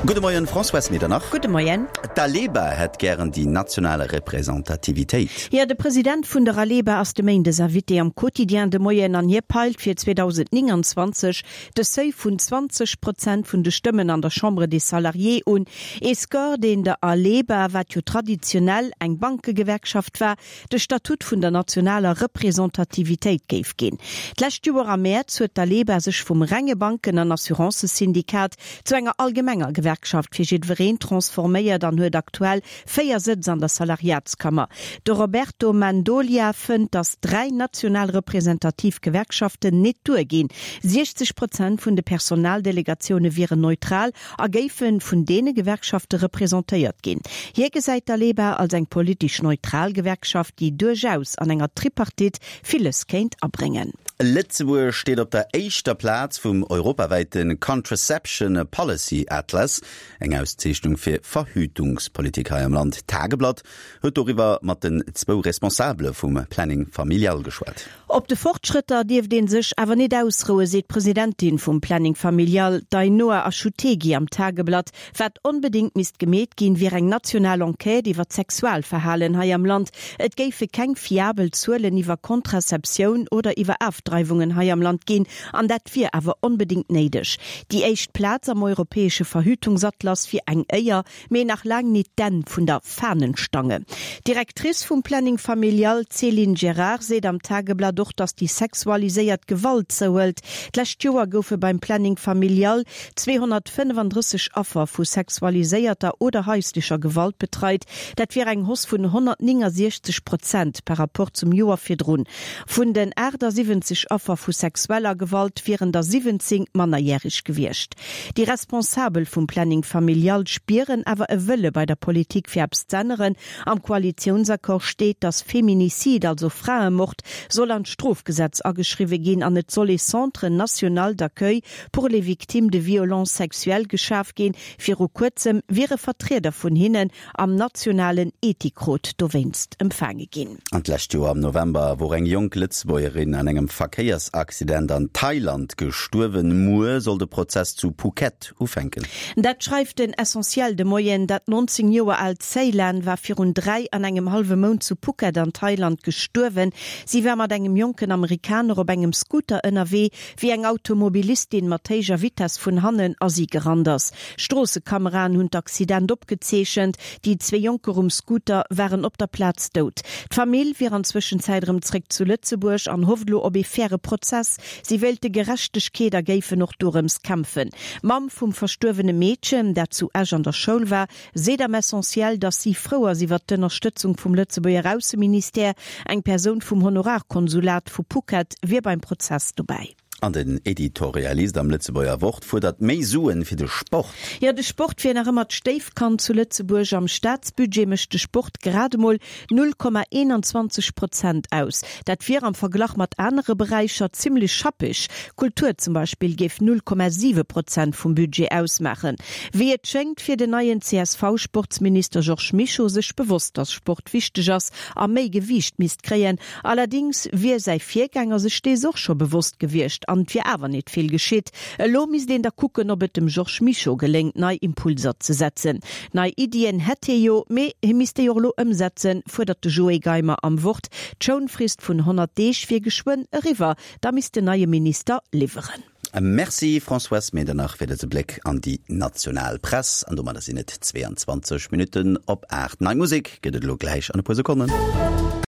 Gudde Moien, Françoise Medernach. Gudde Moien. D'Aleba hätt gären déi national Representativitéit. Jo, de President vun der Aleba ass de Méindes Invité am Quotidien de Moien an hie peilt fir 2029 de Seuil vun 20 Prozent vun de Stëmmen an der Chambre des Salariés un. Ee Score, deen der Aleba, wat jo traditionell eng Bankegewerkschaft war, de Statut vun der nationaler Representativitéit géif ginn. D'lescht Joer am Mäerz huet d'Aleba sech vum renge Banken an Assurancësyndikat zu enger allgemenger Gewerkschaft fir jiddwereen transforméiert an huet aktuell 4 Sëtz an der Salariatskammer. De Roberto Mendolia fënnt, datt 3 national representativ Gewerkschaften nit duerginn. 60 Prozent vun de Personaldelegatioune wieren neutral a géife vun deene Gewerkschafte representéiert ginn. Hie gesäit d'Aleba als eng politesch neutral Gewerkschaft, déi duerchaus an enger Tripartite villes kéint abréngen. Lëtzebuerg steet op der éischter Plaz vum europawäite Contraception Policy Atlas, eng Auszeechnung fir Verhütungspolitik hei am Land. D'Tageblatt huet doriwwer mat den zwou Responsabele vum Planning Familial geschwat. Op de Fortschrëtter dierft ee sech awer net ausrouen, seet d'Presidentin vum Planning Familial, d'Ainhoa Achutegui am Tageblatt. Wat onbedéngt misst gemeet ginn, wier eng national Enquête iwwer d'Sexualverhalen hei am Land. Et géife keng fiabel Zuelen iwwer Contraceptioun oder iwwer Afdreiwungen hei am Land ginn, an dat wier awer onbedéngt néideg. Déi éischt Plaz am europäesche Verhütungsatlas wier eng Éier, Mee nach laang nit d'Enn vun der Fahnenstange. D'Directrice vum Planning Familial, d'Céline Gerard, seet am Tageblatt och, datt déi sexualiséiert Gewalt zouhëlt. D'lescht Joer goufe beim Planning Familial 235 Affer vu sexualiséierter oder haislecher Gewalt betreit. Dat wier eng Hausse vun 169 Prozent par Rapport zum Joer virdrun. Vun den 78 Affer vu sexueller Gewalt wieren der 17 mannerjäreg gewiescht. Déi Responsabel vum Planning Familial spieren awer e Wëlle bei der Politik fir eppes z'änneren. Am Koalitiounsaccord steet, datt Feminicide, also Fraemord, soll an d'Strofgesetz ageschriwwe ginn an et soll ee Centre national d'accueil pour les victimes de violences sexuelles geschaf ginn. Viru kuerzem wiere Vertrieder vun hinnen am nationalen Ethikrot dowéinst empfaange ginn. An d'lescht Joer am November wor eng jonk Lëtzebuergerin an engem Verkéiersaccident an Thailand gestuerwen. Muer soll de Prozess zu Phuket ufänken. Dat schreift den Essentiel de Moien. Dat 19 Joer aalt Ceylan war virun 3 an engem hallwe Mount zu Phuket an Thailand gestuerwen. Si war mat engem jonken Amerikaner op engem Scooter ënnerwee, wéi eng Automobilistin mat héijer Vitess vun hannen a si gerannt ass. Stroossekameraen hunn d'Accident opgezeechent. Déi zwee Jonker um Scooter waren op der Plaz dout. D'Famill wier an Zwëschenzäit erëm zréck zu Lëtzebuerg an hofft elo op ee faire Prozess. Si wéilte Gerechtegkeet a géifen och dorëms kämpfen. D'Mamm vum verstuerwene Meedchen, dat zu Esch an der Schoul war, seet am Essentiel, datt si frou ass iwwer d'Ënnerstëtzung vum Lëtzebuerger Ausseministère. Eng Persoun vum Honorarkonsulat vu Phuket wier beim Prozess dobäi. An den Editorialist am Lëtzebuerger Wort fuerdert méi Suen fir de Sport. Jo, de Sport wier nach ëmmer d'Stéifkand zu Lëtzebuerg. Am Staatsbudget mécht de Sport grad emol 0,21 Prozent aus. Dat wier am Verglach mat anere Beräicher zimmlech schappeg. Kultur zum Beispill géif 0,7 Prozent vum Budget ausmaachen. Wéi et schéngt, wier den neien CSV-Sportsminister Georges Mischo sech bewosst, datt Sport wichteg ass a méi Gewiicht misst kréien. Allerdings wier säi Virgänger sech dees och scho bewosst gewiescht an et wier awer nit vill geschitt. Elo misst een da kucken, ob et dem Georges Mischo geléngt, nei Impulser ze setzen. Nei Iddien hätt hie jo, mee hie misst déi och elo ëmsetzen, fuerdert de Joé Geimer am Wort. D'Schounfrist vun 100 Deeg wier geschwënn eriwwer, da misst den neie Minister liwweren. Merci Françoise Medernach fir dëse Bléck an déi national Press. An domadder sinn et 22 Minutten op 8. Nei Musek gëtt et elo gläich an e puer Sekonnen.